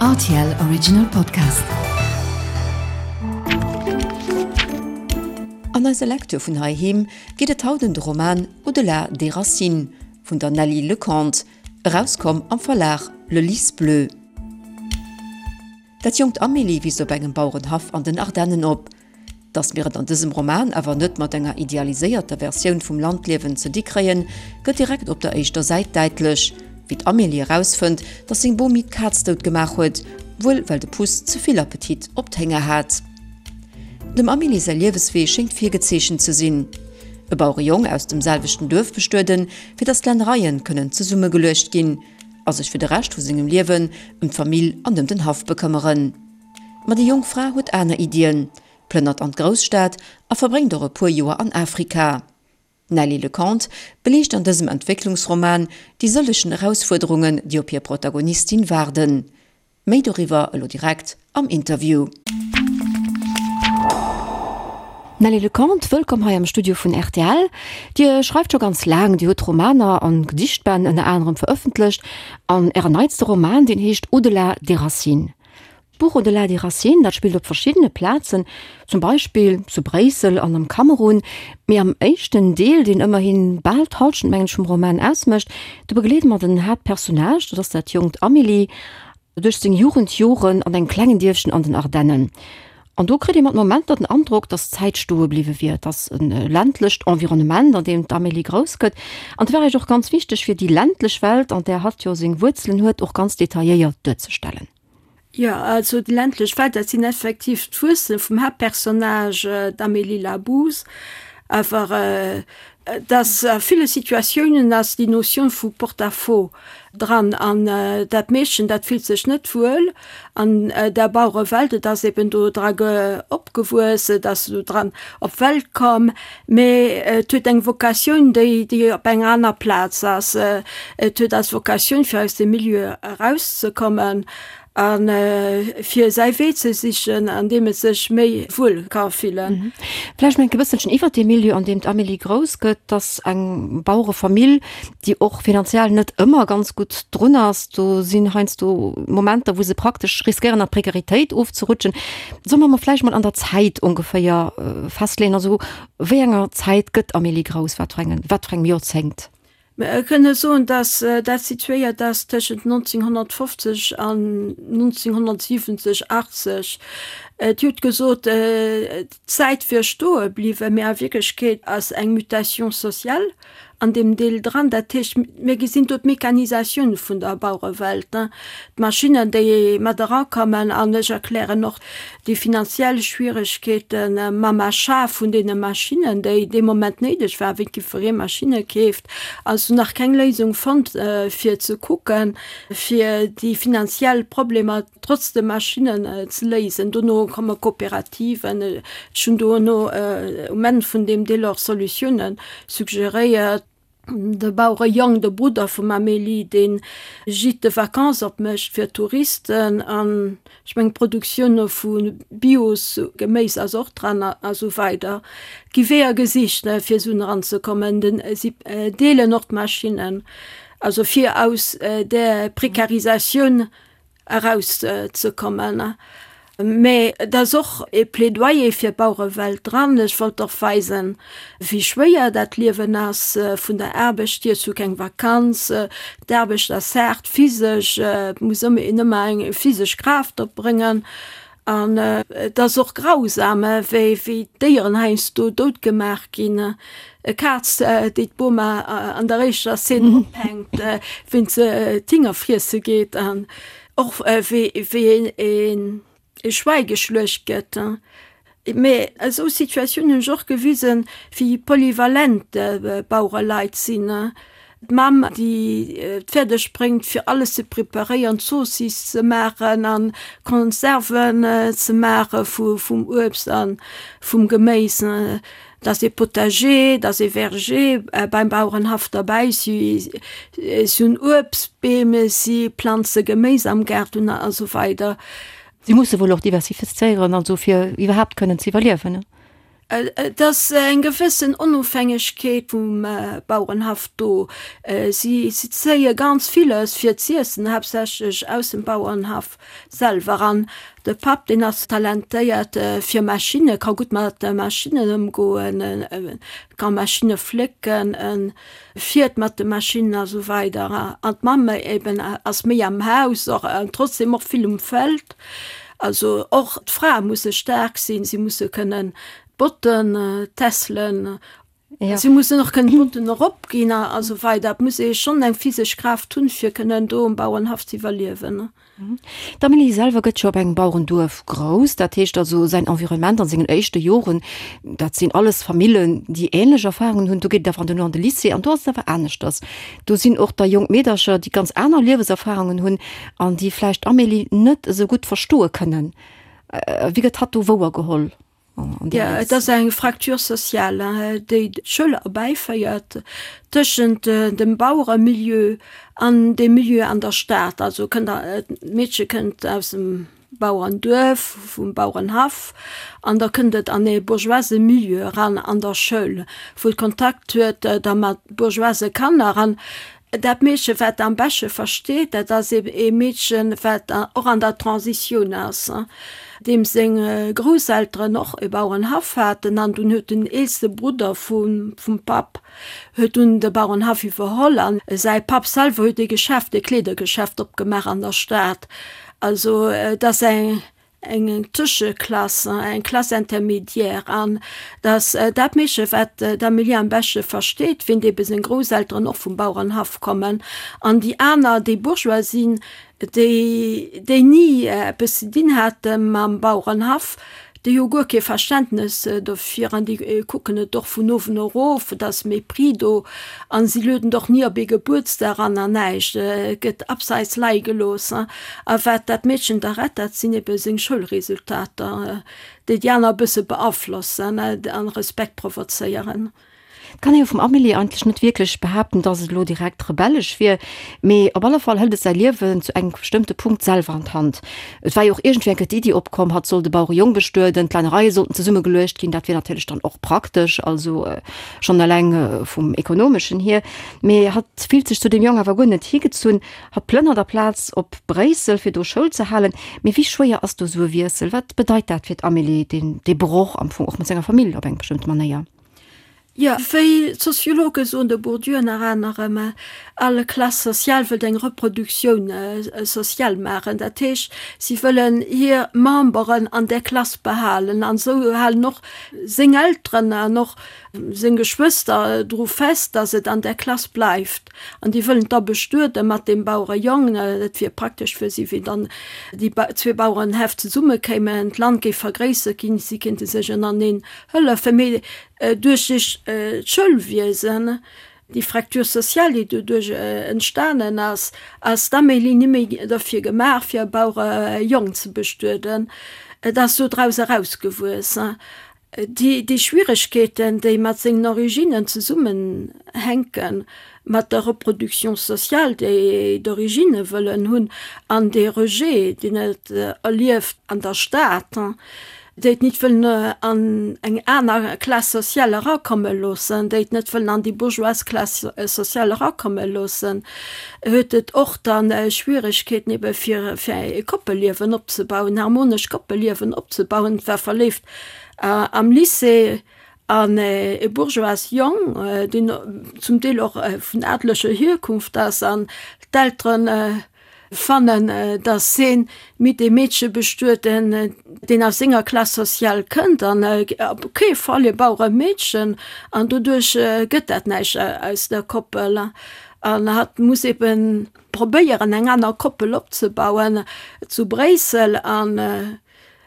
Rtl Original Podcast. An eiser Lecture vun heiheem geet et haut ëm de Roman Au-delà des racines vun der Nelly Lecomte, erauskomm am Verlag Le Lys Bleu. Dat jonkt Amélie wiisst op engem Bauerenhaff an den Ardennen op. Datt mir et an dësem Roman awer net mat enger idealiséierter Versioun vum Landliewen ze di kréien, gëtt direkt op der éischter Säit däitlech, wéi d'Amélie erausfënnt, datt seng Bomi d'Kaz dout gemaach huet, wuel well de Puss ze vill Appetit op d'Hénger hat. Dem Amélie säi Lieweswee schéngt virgezeechent ze sinn, e Bauerejong aus dem selwechten Duerf bestueden, fir datt d'Lännereien kënnen zesummegeluecht ginn, a sech fir de Rescht vu sengem Liewen ëm d'Famill an ëm den Haff bekëmmeren. Ma déi jonk Fra huet aner Iddien, plënnert an d'Grousstad a verbréngt och e puer Joer an Afrika. D'Nelly Lecomte beliicht an dësem Entwécklungsroman déi sëllechen Erausfuerderungen, déi op hir Protagonistin waarden. Méi doriwwer elo direkt am Interview. Nelly Lecomte, wëllkomm hei am Studio vun rtl. Dir schreift scho ganz laang, Dir hutt Romaner an Gedichtbänn ënner anerem verëffentlecht an Ären neitste Roman, deen heescht Au-delà des racines. D'Buch Au-delà des racines, dat spillt op verschiddene Plazen, zum Beispill zu Bréissel an am Kamerun. Mee am éischten Deel, deen ëmmerhi bal d'Hallschent, mengen ech, vum Roman ausmécht, do begleede mer den Haaptpersonnage, dat ass dat jonkt Amélie, duerch seng Jugendjoren an engem klengen Dierfchen an den Ardennen. An do kritt ee mat Momenter den Androck, datt d'Zäit stoe bliwwe wier. Et ass e ländlecht Environnement, an deem d'Amélie grouss gëtt. An et war Iech och ganz wichteg, fir déi ländlech Welt, an där hatt jo seng Wuerzelen huet, och ganz detailléiert duerzestellen. Jo, also déi ländlech Welt, dat sinn effektiv d'Wuerzele vum Haaptpersonnage, d'Amélie Labouze. Awer Et ass a ville Situatiounen ass déi Notion vu Porte-à-faux dran an dat Meedchen, dat fillt sech net wuel an der Bauerewelt. Et ass eben do dra opgewuess, et ass do dran op d'Welt komm, mee et huet eng Vocatioun, déi déi op enger aner Plaz ass. Et huet als Vocatioun, fir aus dem Milieu erauszekommen A fir säi Wee ze sichen, an deem et sech méi wuel ka fillen. Vläicht nach e bësselchen iwwert dee Milieu, an deem d'Amélie grouss gëtt. 't ass eng Bauerefamill, déi och finanziell net ëmmer ganz gutt drun ass. Do sinn heiansdo Momenter, wou se praktesch riskéieren, an d'Prekaritéit ofzerutschen. Solle mer mol vläicht mol an der Zäit ongeféier festleeën? Also wéi enger Zäit gëtt d'Amélie grouss? Wat fir engen, wat fir engem Joerzéngt? Mer kënne soen, datt dat situéiert ass tëschent 1950 an 1970, 80. Dir hutt gesot, d'Zäit wier stoe bliwwen, mee a Wierklechkeet ass eng Mutation sociale an deem Deel dran. Dat heescht, mir gesinn do d'Mechanisatioun vun der Bauerewelt, d'Maschinnen, déi mat erakommen. An ech erklären och déi finanziell Schwieregkeete mam Achat vun deene Maschinnen, déi dee Moment néideg waren, wéi jiddweree Maschinne keeft, ass nach keng Léisung fonnt, fir ze kucken, fir déi finanziell Problemer trotz de Maschinnen ze léisen. Dono komme Kooperativen. Ech hunn dono um Enn vun deem Deel och Solutiounen suggeréiert. De Bauerejong, de Brudder vum Amélie, dee Gîte de vacances opmécht fir Touristen an ech mengen d'Produktioun vu Bios-Geméis ass och dran a sou weider. Et gi Weeër gesicht, fir esou eranzekommen. Si deelen och d'Maschinnen, also fir aus där Prekarisatioun eraus ze kommen. Mä et ass och e Plädoyer fir d'Bauerewelt dran. Ech wollt och weisen, wéi schwéier dat Liewen ass vun der Aarbecht hier. Ech hu keng Vakanz, d'Aarbecht ass haart physesch, et muss een ëmmer eng physesch Kraaft opbréngen. An et ass och grausam, wéi d'Déieren heiansdo dout gemaach ginn. E Kaz, déi d'Boma an der éischter Szene ophänkt, wéint se d'Hinger friesse geet, an och wéi e Schwäi geschluecht gëtt. Mee esou Situatiounen hunn ech och gewisen, wéi polyvalent d'Bauereleit sinn. D'Mamm, déi et fäerdeg bréngt, fir alles ze preparéieren, Zoossiss ze maachen a Konserven ze maache vum Uebst a vum Geméis. Et ass ee Potager, et ass ee Verger beim Bauerenhaff derbäi. Si hunn Uebstbeem, si planze Geméis am Gaart un a sou weider. Si musse wuel och diversifizéieren, also fir iwwerhaapt kënnen ze iwwerliewen. Et ass eng gewëssen Onofhängegkeet vum Bauerenhaff do. Si zéie ganz villes fir z'iessen, haaptsächlech aus dem Bauerenhaff selwer. An de Papp, deen ass talentéiert fir Maschinne, ka gutt mat Maschinnen ëmgoen, ka Maschinne flécken, fiert mat de Maschinnen a sou weider. An d'Mamm eben ass méi am Haus och an trotzdem och vill um Feld. Also och d'Frae musse staark sinn, si musse kënnen d'Botten tässelen, si mussen och kënnen d'Botten eropginn a sou weider. Et muss ee schonn eng physesch Kraaft hunn, fir kënnen do um Bauernhaff ze iwwerliewen. D'Amélie selwer gëtt jo op engem Bauerenduerf grouss, dat heescht also säin Environnement an sengen éischte Joren, dat sinn alles Famillen, déi änlech Erfarungen hunn. Do geet et awer duerno an de Lycée an do ass et awer aneschters. Do sinn och da jonk Meedercher, déi ganz aner Lieweserfarungen hunn an déi vläicht d'Amélie net esou gutt verstoe kënnen. Wéi gëtt hatt do wouergeholl? Jo, et ass eng Fracture sociale, déi d'Schoul erbäiféiert tëschent dem Baueremilieu an dem Milieu an der Stad. Also kënnt d'Meedche kënnt aus dem Bauerenduerf, vum Bauerenhaff, an da kënnt et an ee bourgeoise Milieu eran an der Schoul, wou et Kontakt huet da mat bourgeoise Kanner. An Dat Meedchen, wat am besche versteet, dat ass ebe ee Meedchen, wat och an der Transitioun ass, deem seng Grousselteren och e Bauerenhaff haten. An dunn huet den eelste Brudder vum Papp huet dunn de Bauerenhaff iwwerholl. An säi Papp selwer huet ee Geschäft, ee Kleedergeschäft opgemaach an der Stad. Also et ass eng eng Tëscheklass, eng Classe intermédiaire, an datt dat Meedche, wat d'Amélie am beschte versteet, wéint ebe seng Grousselteren och vum Bauerenhaff kommen, an déi aner, déi Bourgeois sinn, déi, déi ni eppes ze dinn hate mam Bauerenhaff, déi hu guer kee Verständnes dofir an déi kucken et och vun uewen erof, et ass Mépris do an si lueden och ni op ee Gebuertsdag an an näischt, et gëtt abseits leie gelooss. A wat dat Meedchen da rett, dat sinn ebe seng Schoulresultater, déi déi aner e bësse beaflossen an Respekt provozéieren. Et kann ee jo vum Amélie eigentlech net wierklech behaapten, dass et elo direkt rebellesch wier, mee op alle Fall hëlt et säi Liewen zu engem bestëmmte Punkt selwer an d'Hand. Et war jo och iergendwéi eng Kéier d'Iddi opkomm, hatt soll de Bauerejong bestueden, d'Lännereie sollten zesummegeluecht ginn, dat wier natierlech dann och praktesch, also schonn eleng vum Ekonomeschen hier. Mee hatt fillt sech zu deem Jong awer guer net higezunn. Hatt plënnert aplaz op Bréissel, fir do Schoul ze halen. Mee wéi schwéier ass do esou e Wiessel? Wat bedeit dat fir d'Amélie, deen, dee Broch am Fong och mat senger Famill op eng bestëmmte Manéier? Jo, wéi d'Soziologe soen, de Bourdieu ënner anerem, all Classe sociale wëllt eng Reproduktioun sociale maachen. Dat heescht, si wëllen hir Memberen an där Klass behalen. An esou halen och seng Elteren an och seng Geschwëster dru fest, datt et an där Klass bleift. An déi wëllen da bestuede mat deem Bauerejong. Et wier praktesch fir si, wéi dann déi zwee Bauerenhäff zesummekéimen, d'Land géif vergréissert ginn, si kéinte sech ënnereneen hëllefen. Mee duerch d'Schoulwiesen, déi Fracture sociale, déi doduerch entstanen ass, ass d'Amélie ni méi derfir gemaach, fir e Bauerejong ze bestueden. Et ass dodraus erausgewuess. Déi Schwieregkeeten, déi mat sengen Originnen zesummenhänken, mat der Reproduction sociale, déi d'Originne wëllen hunn, an dee Rejet, deen et erlieft an der Stad, déi et nit wëllen an eng aner Classe sociale erakomme loossen, déi et net wëllen an déi bourgeoise Classe sociale erakomme loossen, huet et och dann Schwieregkeeten ebe fir e Koppelliewen opzebauen, en harmonescht Koppelliewen opzebauen. Et war verléift Am Lycée an e bourgeoise Jong, deen zum Deel och vun adleger Hierkunft ass, an d'Eltere fannen, datt heen mit deem Meedche bestueden, deen aus senger Classe sociale kënnt, an op kee Fall e Baueremeedchen, an doduerch gëtt dat näischt aus der Koppel, an hatt muss eben probéieren, eng aner Koppel opzebauen zu Bréissel. An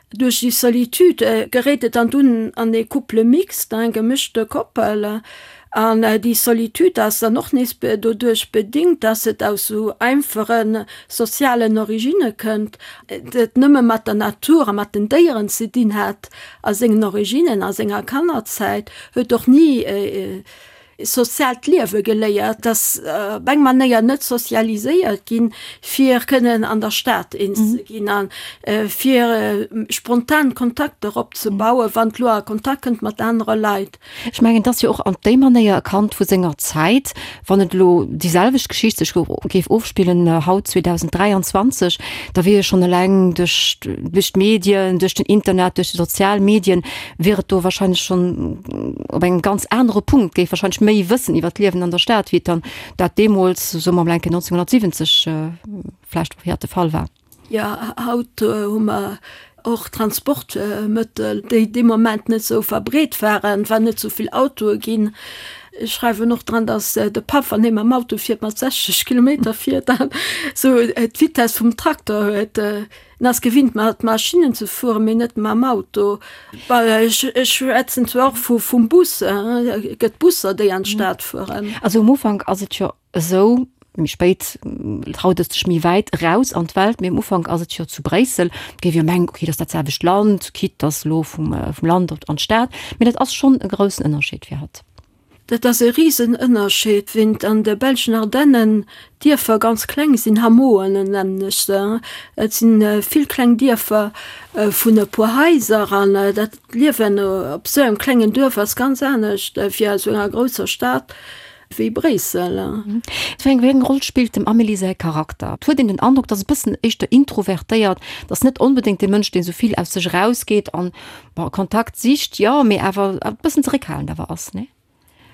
Duerch déi Solitude geréit et dann dunn an ee Couple mixte, eng gemëschte Koppel. An déi Solitude ass dann och nees doduerch bedingt, dass et aus sou einfache sozialen Originne kënnt, et nëmme mat der Natur a mat den Déieren ze dinn hat a sengen Originnen, a senger Kannerzäit, huet och ni. Soziaalt Liewe geléiert, ass op eng Manéier net sozialiséiert ginn, fir kënnen an der Stad eens ze ginn a fir spontan Kontakter opzebauen, wann d'lo a Kontakt kënnt mat anere Leit. Ech mengen, et ass jo och an déi Manéier e Kand vu senger Zäit, wann et elo déi selwecht Geschicht sech géif ofspillen haut 2023, da wier jo schonn eleng duerch duerch d'Medien, duerch den Internet, duerch déi sozial Medien, wier et do wahrscheinlech schonn op engem ganz anere Punkt, géif wahrscheinlech méi wëssen iwwer d'Liewen an der Stad, wéi et dann dat deemools, soe mer mol eng Kéier 1970 vläicht de Fall war. Jo, haut hu mer och Transportmëttel, déi dee Moment net esou verbreet waren, et waren net esou vill Autoe ginn. Ech schreiwen och dran, datt de Papp, wann hie mam Auto fiert, mat 60 Kilometer fiert an esou d'Vitess vum Trakter huet. En ass gewinnt mat Maschinnen ze fueren, mee net mam Auto. Ech schwätzen zwar och vum Bus, et gëtt Busser, déi an d'Stad fueren. Also um Ufank ass et jo esou, méi spéit traut et sech méi wäit eraus an d'Welt, mee um Ufank ass et jo zu Bréissel, et géif jo mengen, okay, dat ass dat selwecht Land, quitte dass elo vum Land an d'Stad, mee dat ass schonn e groussen Ënnerscheed fir hatt. Dat ass e Risenënnerscheed, wéint an de belschen Ardennen d'Dierfer ganz kleng sinn, Hameauen nennen ech se. Et si vill kleng Dierfer vun e puer Haiser an dat Liewen op esou engem klengen Duerf ass ganz anescht wéi a sou enger grousser Stad wéi Bréissel. Wéi eng Roll spillt dem Amélie säi Charakter? Et huet een den Androck, dass e bëssen éischter introvertéiert, dass net onbedéngt dee Mënsch, dee sou vill aus sech erausgeet an Bon, Kontakt sicht, jo, mee awer e bëssen zeréckhalend awer ass, nee?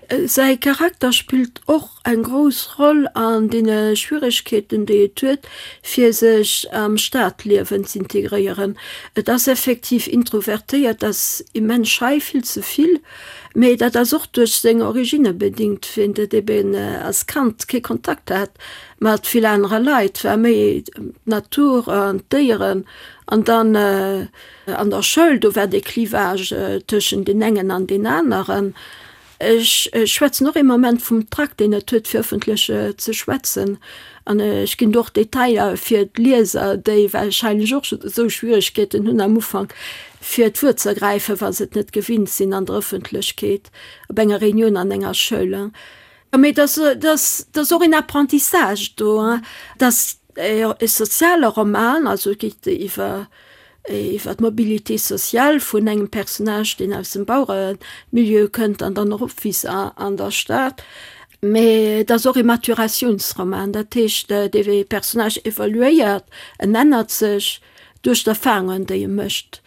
Säi Charakter spillt och eng grouss Roll an deene Schwieregkeeten, déi et huet, fir sech am Stadliewen z'integréieren. Et ass effektiv introvertéiert, ass immens schei, vill ze vill, mee dat ass och duerch seng Originne bedingt, wéint et eben als Kand kee Kontakt hat mat vill anere Leit, war méi d'Natur an d'Déieren an dann An der Schoul, do war dee Clivage tëschent deen engen an deen aneren. Ech schwätzen och ee Moment vum Trac, deen et huet, fir ëffentlech ze schwätzen. An ech ginn do och Detailer fir d'Lieser, déi warscheinlech och esou Schwieregkeeten hunn am Ufank, fir d'Wuert ze ergräifen, wa se et net gewinnt sinn an der Ëffentlechkeet, op enger Reunioun an enger Schoul. Mee et ass och een Apprentissage do, dass E soziale Roman, also et geet iwwer iwwer d'Mobilité sociale vun engem Personnage, deen aus dem Baueremilieu kënnt an dann eropwiisst an der Stad. Mee et ass och e Maturatiounsroman, dat heescht, dee Personnage evoluéiert, en ännert sech duerch d'Erfarungen, déi e mécht.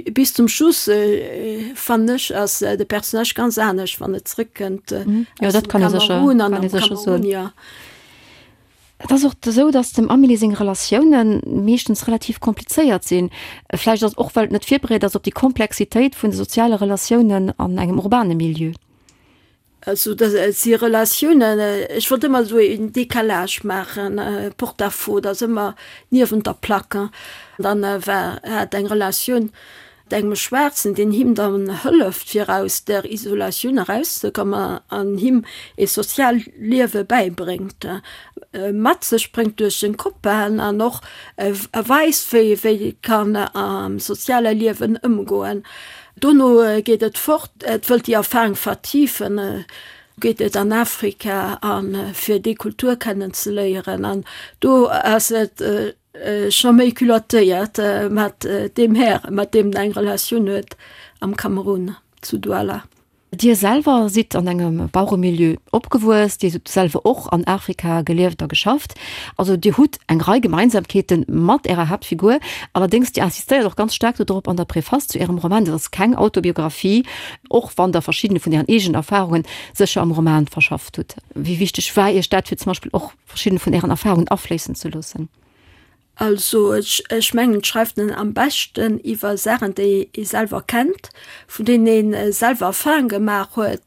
Bis zum Schluss, fannen ech, ass de Personnage ganz anescht, wann et zrëckkënnt aus dem Kamerun an am Kamerun, jo. Et ass och esou, datt dem Amélie seng Relatioune meeschtens relativ komplizéiert sinn. Vläicht ass et och, well et net virbereet ass op déi Komplexitéit vun de soziale Relatiounen an engem urbane Milieu. Also dat si Relatiounen, ech wollt ëmmer esou een Décalage maachen, Porte-à-faux, dat ass ëmmer niewent der Plaque. Dann war hat eng Relatioun mat engem Schwaarzen, deen him dann hëlleft fir aus där Isolatioun erauszekommen an him ee soziaalt Liewe bäibréngt, mat sech bréngt duerch seng Copainen an och weist, wéi wéi kann am soziale Liewen ëmgoen. Dono geet et fort, et wëllt déi Erfahrung vertiefen, geet et an Afrika a fir déi Kultur kennenzeléieren an do ass et scho méi culottéiert mat deem Här, mat deem en eng Relatioun huet am Kamerun, zu Douala. Dir selwer sidd an engem Baueremilieu opgewuess, Dir hutt selwer och an Afrika gelieft a geschafft. Also Dir hutt eng Rei Gemeinsamkeete mat Ärer Haaptfigur. Allerdéngs, Dir insistéiert och ganz staark dodrop an der Preface zu Ärem Roman, dat ass keng Autobiographie, och wann Der verschiddene vun Ären eegenen Erfarunge sécher am Roman verschafft hutt. Wéi wichteg war Iech dat, fir zum Beispill och verschidden vun Ären Erfahrungen afléissen ze loossen? Also ech mengen, et schreift en am beschten iwwer Saachen, déi ee selwer kennt, vun deenen ee selwer Erfahrung gemaach huet.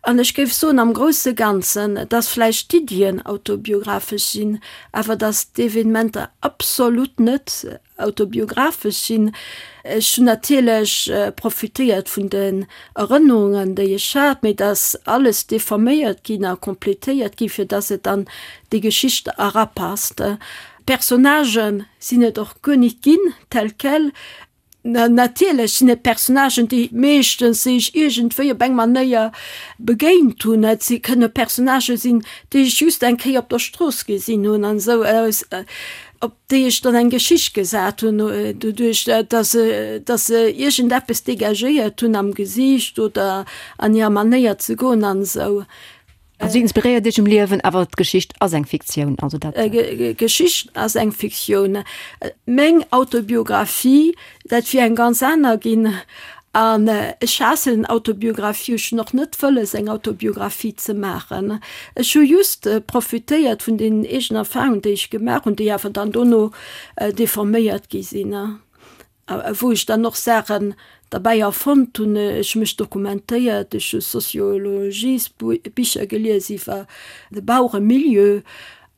An ech géif soen, am grousse Ganzen, dass vläicht d'Iddien autobiographesch sinn, awer dass d'Evenementer absolut net autobiographesch sinn. Ech hunn natierlech profitéiert vun den Erënnerungen, déi ech hat, mee et ass alles deforméiert ginn a completéiert ginn, fir dass et an déi Geschicht erapasst. D'Personnagë sinn et och guer nit ginn, tel quel. Natierlech sinn et Personnagen, déi meeschtens déi ech iergendwéi op eng Manéier begéint hunn. Et si kënne Personnagë sinn, déi ech just eng Kéier op der Strooss gesinn hunn an esou, op déi ech dann eng Geschicht gesat hunn, doduerch datt se, datt se iergendeppes dégagéiert hunn am Gesiicht oder an hirer Manéier ze goen an esou. Also si inspiréiert Iech um Liewen, awer d'Geschicht ass eng Fiktioun, also dat. D'Geschicht ass eng Fiktioun. Meng Autobiographie, dat wier eng ganz aner ginn. An ech haassen Autobiographie, ech hunn och net wëlles eng Autobiographie ze maachen. Ech hu just profitéiert vun den eegenen Erfahrungen, déi ech gemaach hunn, déi awer dann dono deforméiert gi sinn. A wou ech dann och Saachen derbäi erfonnt hunn. Ech hu mech dokumentéiert, ech hu Sociologiesbicher gelies iwwer de Baueremilieu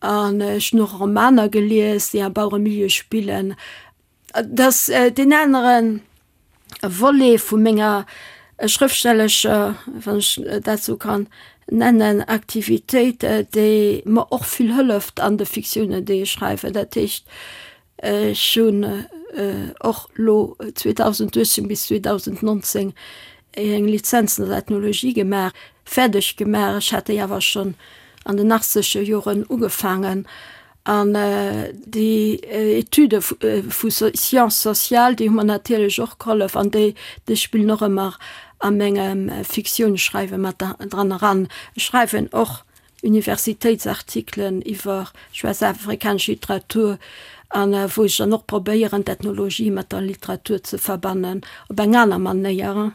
an ech hunn och Romaner gelies, déi am Baueremilieu spillen. Et ass deen anere Volet vu menger schrëftstellescher, wann ech dat esou kann nennen, Aktivitéit, déi mer och vill hëlleft an de Fiktiounen, déi ech schreiwen. Dat heescht, Ech hunn och lo 2018 bis 2019 eng Lizenz an der Ethnologie gemaach, fäerdeg gemaach. Ech hat déi awer schonn an den achtzeger Joren ugefaangen. An déi Etüde vu Sciences sociales, déi hu mer natierlech och gehollef an déi spillen och ëmmer a mengem Fiktiounsschreiwe mat dran eran. Ech schreiwen och Universitéitsartikelen iwwer schwaarz-afrikanesch Literatur an wou ech dann och probéieren d'Ethnologie mat der Literatur ze verbannen op eng aner Manéier.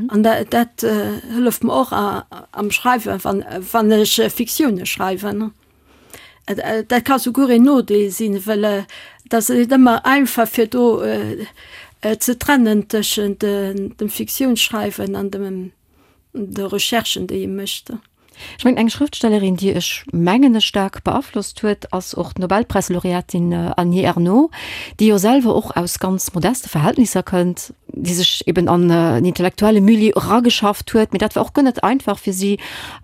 An dat hëlleft mer och am Schreiwen, wann wann ech Fiktioune schreiwen. Dat ka souguer een Nodeel sinn, well et ass net ëmmer einfach fir do ze trennen tëschent dem Fiktiounsschreiwen an dem de Recherchen, déi ee mécht. Ech mengen, eng Schrëftstellerin, déi ech mengen ech staark beaflosst huet, ass och d'Nobelpräislaureatin Annie Ernaux, déi jo selwer och aus ganz modeste Verhältnisser kënnt, déi sech eben an en intellektuelle Milieu erageschafft huet. Mee dat war och guer net einfach fir si.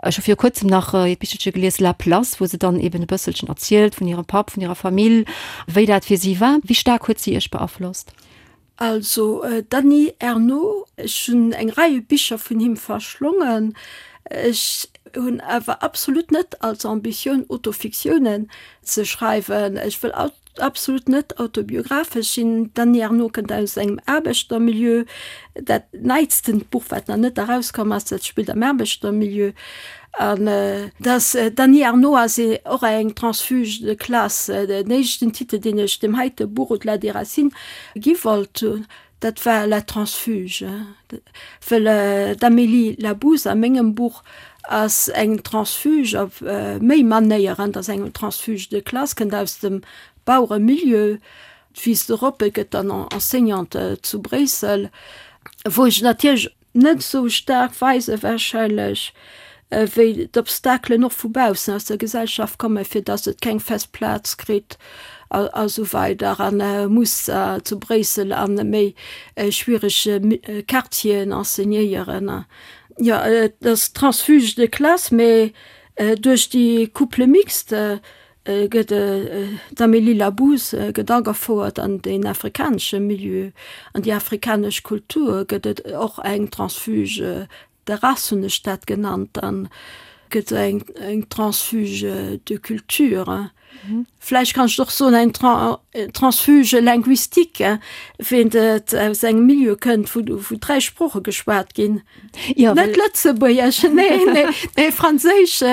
Ech hu viru kuerzem nach hiert Bichelche gelies, La Place, wou se dann eben e bësselchen erzielt vun hirem Papp, vun hirer Famill, wéi dat fir si war. Wéi staark huet si Iech beaflosst? Also Dany Ernaux, ech hunn eng Rei Bicher vun him verschlongen. Ech hunn awer absolut net als Ambitioun Autofiktiounen ze schreiwen. Ech wëll absolut net autobiographesch sinn. D'Dany Ernaux kënnt aus engem Aarbechtermilieu. Dat neitstent Buch, wat nach net erauskomm ass, dat spillt am Aarbechtermilieu. An dass d'Annie Ernaux ass och eng Transfuge de classe. Den éischten Titel, deen ech deem heite Buch Au-delà des racines gi wollt hunn, dat war La transfuge. Well d'Amélie Labous a mengem Buch ass eng Transfuge op méi Manéieren. Dat ass eng Transfuge de classe, kënnt aus dem Baueremilieu, d'Fils de Roppe, gëtt dann Enseignante zu Bréissel, wou ech natierlech Net esou staark weise warscheinlech, wéi d'Obstakelen och vu baussen aus der Gesellschaft kommen, fir datt et keng fest Plaz kritt a esou weider a muss zu Bréissel a méi schwierege Quartieren enseignéieren. Jo, et ass Transfuge de classe, mee duerch déi Couple mixte gëtt d'Amélie Labous gëtt agefouert an den afrikanesche Milieu, an déi afrikanesch Kultur, gëtt et och eng Transfuge de race, hunn ech dat genannt, dann gëtt eng eng Transfuge de culture. Vläicht kann ech och soen eng Transfuge linguistique, ween et aus engem Milieu kënnt, wou wou 3 Sprooche geschwat ginn. Net Lëtzebuergesch, nee, nee, nee, Franséisch,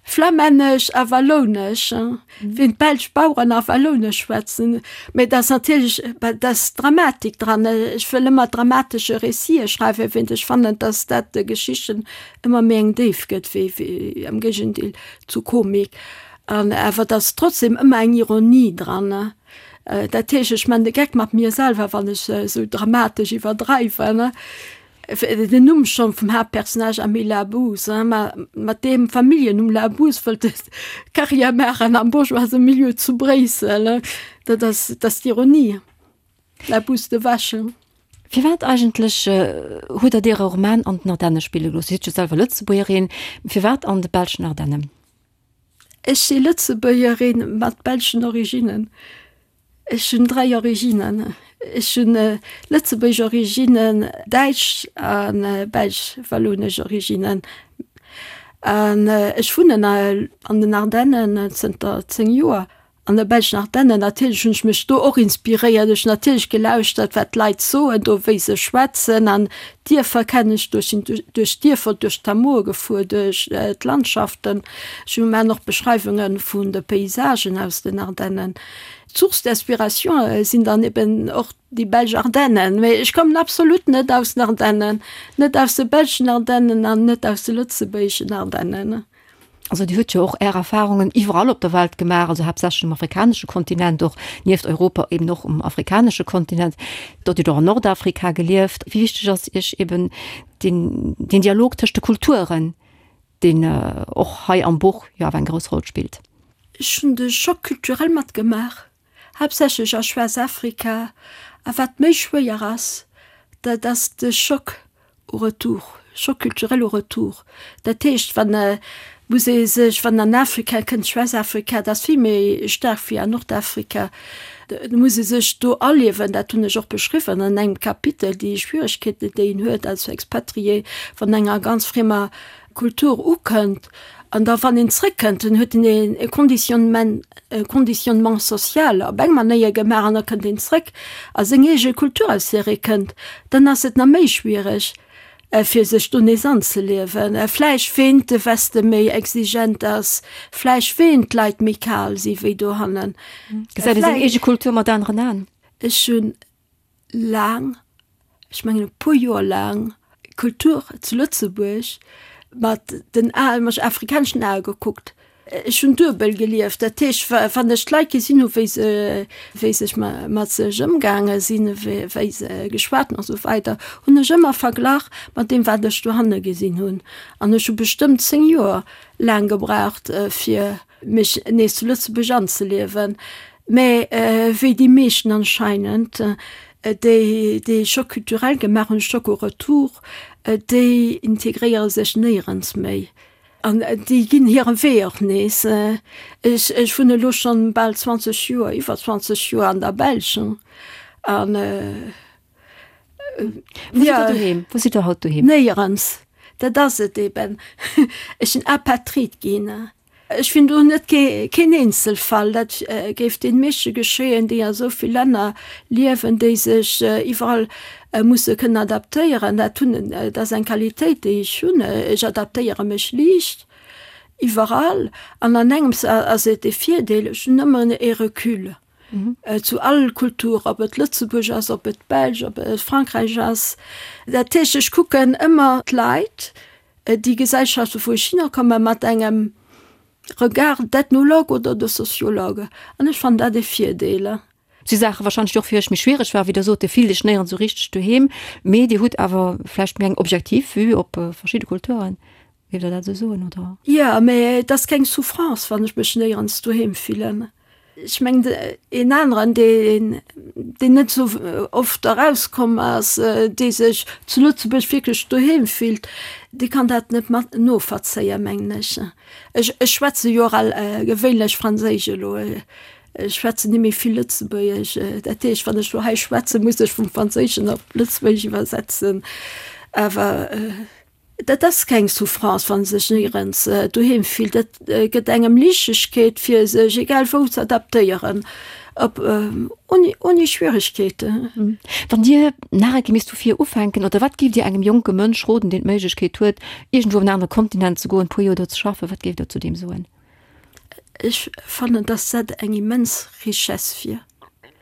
Flammännesch a Wallounesch, wéi d'belsch Baueren a Wallounesch schwätzen. Mä et ass natierlech, et ass Dramatik dran. Ech wëll ëmmer dramatesche Récite schreiwen, wéint ech fannen, datt dat de Geschichten ëmmer méi eng Déift gëtt, wéi, wéi am Géigendeel zu Komik. An awer et ass trotzdem ëmmer eng Ironie dran. Dat heescht, ech man de Geck mat mir selwer, wann ech esou dramatesch iwwerdreiwen. Den Numm schonn vum Haaptpersonnage Amélie Labous, ma mat deem Familljennumm Labous wëllt e Carrière maachen am bourgeoise Milieu zu Bréissel. Dat ass, dat ass d'Ironie. La bouse de vache. Firwat eigentlech hutt Der Äre Roman an den Ardenne spille gelooss? Dir sidd jo selwer Lëtzebuergerin. Firwat an de belschen Ardennen? Ech si Lëtzebuergerin mat belschen Originnen. Ech hunn 3 Originnen. Ech hunn lëtzebuergesch Originnen, däitsch a belsch-wallonesch Originnen. An ech wunnen an den Ardennen zënter 10 Joer. An de belschen Ardennen, natierlech hunn ech mech do och inspiréiert. Ech hunn natierlech gelauschtert, wat d'Leit soen do, wéi se schwätzen. An d'Dierfer kennen ech do. Ech sinn duerch d'Dierfer, duerch d'Hameaue gefuer, duerch d'Landschaften. Ech hu maachen och Beschreiwunge vun de Paysagen aus den Ardennen. D'Source d'inspiration sinn dann eben och déi belsch Ardennen. Mee ech kommen absolut net aus den Ardennen, net aus de belschen Ardennen an net aus de lëtzebuergeschen Ardennen. Also Dir hutt jo och Är Erfahrungen iwwerall op der Welt gemaach, also haaptsächlech um afrikanesche Kontinent, och nieft Europa eben och um afrikanesche Kontinent. Dort hutt Der och an Nordafrika gelieft. Wéi wichteg ass Iech eben deen, deen Dialog tëscht de Kulturen, deen och hei am Buch jo awer eng grouss Roll spillt? Ech hunn de Choc culturel matgemaach, haaptsächlech a Schwaarz-Afrika. A wat méi schwéier ass, dat ass de Choc au retour, choc culturel au retour. Dat heescht, wann muss ee sech, wann an Afrika kënnt, Schwaarz-Afrika, dat ass vill méi staark wéi an Nordafrika, do muss ee sech do aliewen, dat hunn ech och beschriwwen an engem Kapitel, déi Schwieregkeeten, déi een huet als Expatrié, wann enger ganz friemer Kultur ukënnt an da wann een zréckkënnt, dann huet een e Conditionnement, e Conditionnement social op eng Manéier gemaach an da kënnt een zréck a seng eege Kultur, aus där ee kënnt, dann ass et nach méi schwiereg fir sech do nees anzeliewen. Vläicht ween de Weste méi exigent ass, vläicht ween d'Leit méi kal si wéi dohannen. Gesäit ee seng eege Kultur mat aneren Aen? Ech hunn laang, ech mengen e puer Joer laang, Kultur zu Lëtzebuerg mat den Aen, mat afrikaneschen Ae gekuckt. Ech hunn duebel gelieft, dat heescht, wann ech d'Leit gesinn hu wéi se, wéi sech mat sech ëmgaange sinn, wéi se geschwat hunn a sou weider, hunn ech ëmmer verglach mat deem wat ech dohanne gesinn hunn. An ech hu bestëmmt 10 Joer laang gebraucht fir mech nees zu Lëtzebuerg anzeliewen. Mä wéi déi meeschten anscheinend, déi dee Choc culturel gemaach hunn, Choc au retour, déi integréiere sech néierens méi. An déi ginn hire Wee och nees. Ech, ech wunnen elo schonn bal 20 Joer, iwwer 20 Joer an der Belsch. An Wou sidd Der doheem? Wou sidd Der haut doheem? Néierens. Dat ass et eben. Ech sinn Apatrid ginn. Ech sinn do net keen Eenzelfall. Dat géif deene meeschte geschéien, déi a sou vill Länner liewen, déi sech iwwerall musse kënnen adaptéieren. Dat hunn, dat ass eng Qualitéit, déi ech hunn. Ech adaptéiere mech liicht iwwerall. An an engems ass et e Virdeel, ech hunn ëmmer e Recul zu all Kultur, ob et Lëtzebuerg ass, ob et d'Belsch, ob et Frankräich ass. Dat heescht, ech kucken ëmmer d'Leit, déi Gesellschaften, wou ech hinnerkomme mat engem Regard d'Ethnologue oder de Sociologue. An ech fannen dat e Virdeel. Si Saache wahrscheinlech déi och fir iech méi schwiereg waren, wéi Der sot, Dir fillt iech néierens esou richteg doheem, mee Dir hutt awer vläicht méi eng objektiv Vue op verschidde Kulturen. Géift Der dat esou soen, oder? Jo, mee et ass keng Souffrance, wann ech mech néierens doheem fillen. Ech mengen, een aneren, deen, deen net esou oft erauskomm ass, dee sech zu Lëtzebuerg wierklech doheem fillt, dee kann dat net mat noverzéien, mengen ech. Ech, ech schwätze jo och al gewéinlech Franséisch elo. Ech schwätzen ni méi vill Lëtzebuergesch. Dat heescht, wann ech elo hei schwätzen, muss ech vum Franséischen op Lëtzebuergesch iwwersetzen. Awer dat ass keng Souffrance, wann ee sech néierens doheem fillt. Dat gëtt engem Liichtegkeet, fir sech egal wou ze adaptéieren, op ouni, ouni Schwieregkeeten. Wann Dir nach eng Kéier misst vu vir ufänken, oder wat géift Dir engem jonke Mënsch roden, deen d'Méiglechkeet huet, iergendwou op en anere Kontinent ze goen, e puer Joer do ze schaffen, wat géift Der zu deem soen? Ech fannen, dass dat eng immens Richesse wier.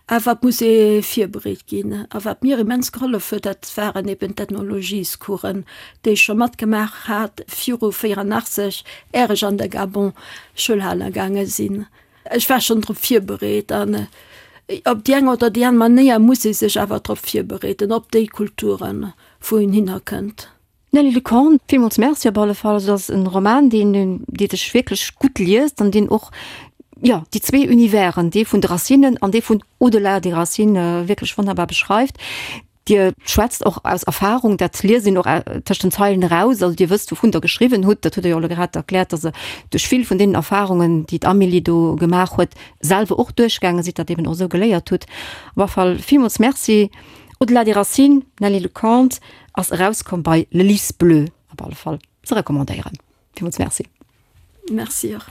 Awer et muss ee virbereet ginn. A wat mir immens gehollef huet, dat waren eben d'Ethnologiescoursen, déi ech scho matgemaach hat viru 84, är ech an de Gabon Schoul hale gaange sinn. Ech war schonn drop virbereet. An op déi eng oder déi aner Manéier muss ee sech awer drop virbereeden, op déi Kulturen, wou een hinnerkënnt. Nelly Lecorne, Villmools Merci op alle Fall. Also, dat ass en Roman, deen, dee sech wierklech gutt liest an deen och, jo, déi zwee Universen, dee vun de Racinen an dee vun au-delà des racines, wierklech wonnerbar beschreift. Dir schwätzt och aus Erfahrung, dat liest een och tëscht den Zeilen eraus. Also Dir wësst, wouvun Der geschriwwen hutt. Dat hutt Der jo elo grad erkläert, dass Der duerch vill vun deenen Erfahrungen, déi d'Amélie do gemaach huet, selwer och duerchgaange sidd, dat eben och esou geléiert hutt. Op alle Fall villmools Merci. Au-delà des racines, Nelly Lecomte, ass erauskomm bei Le Lys Bleu. Op alle Fall ze recommandéieren. Villmools Merci. Merci och.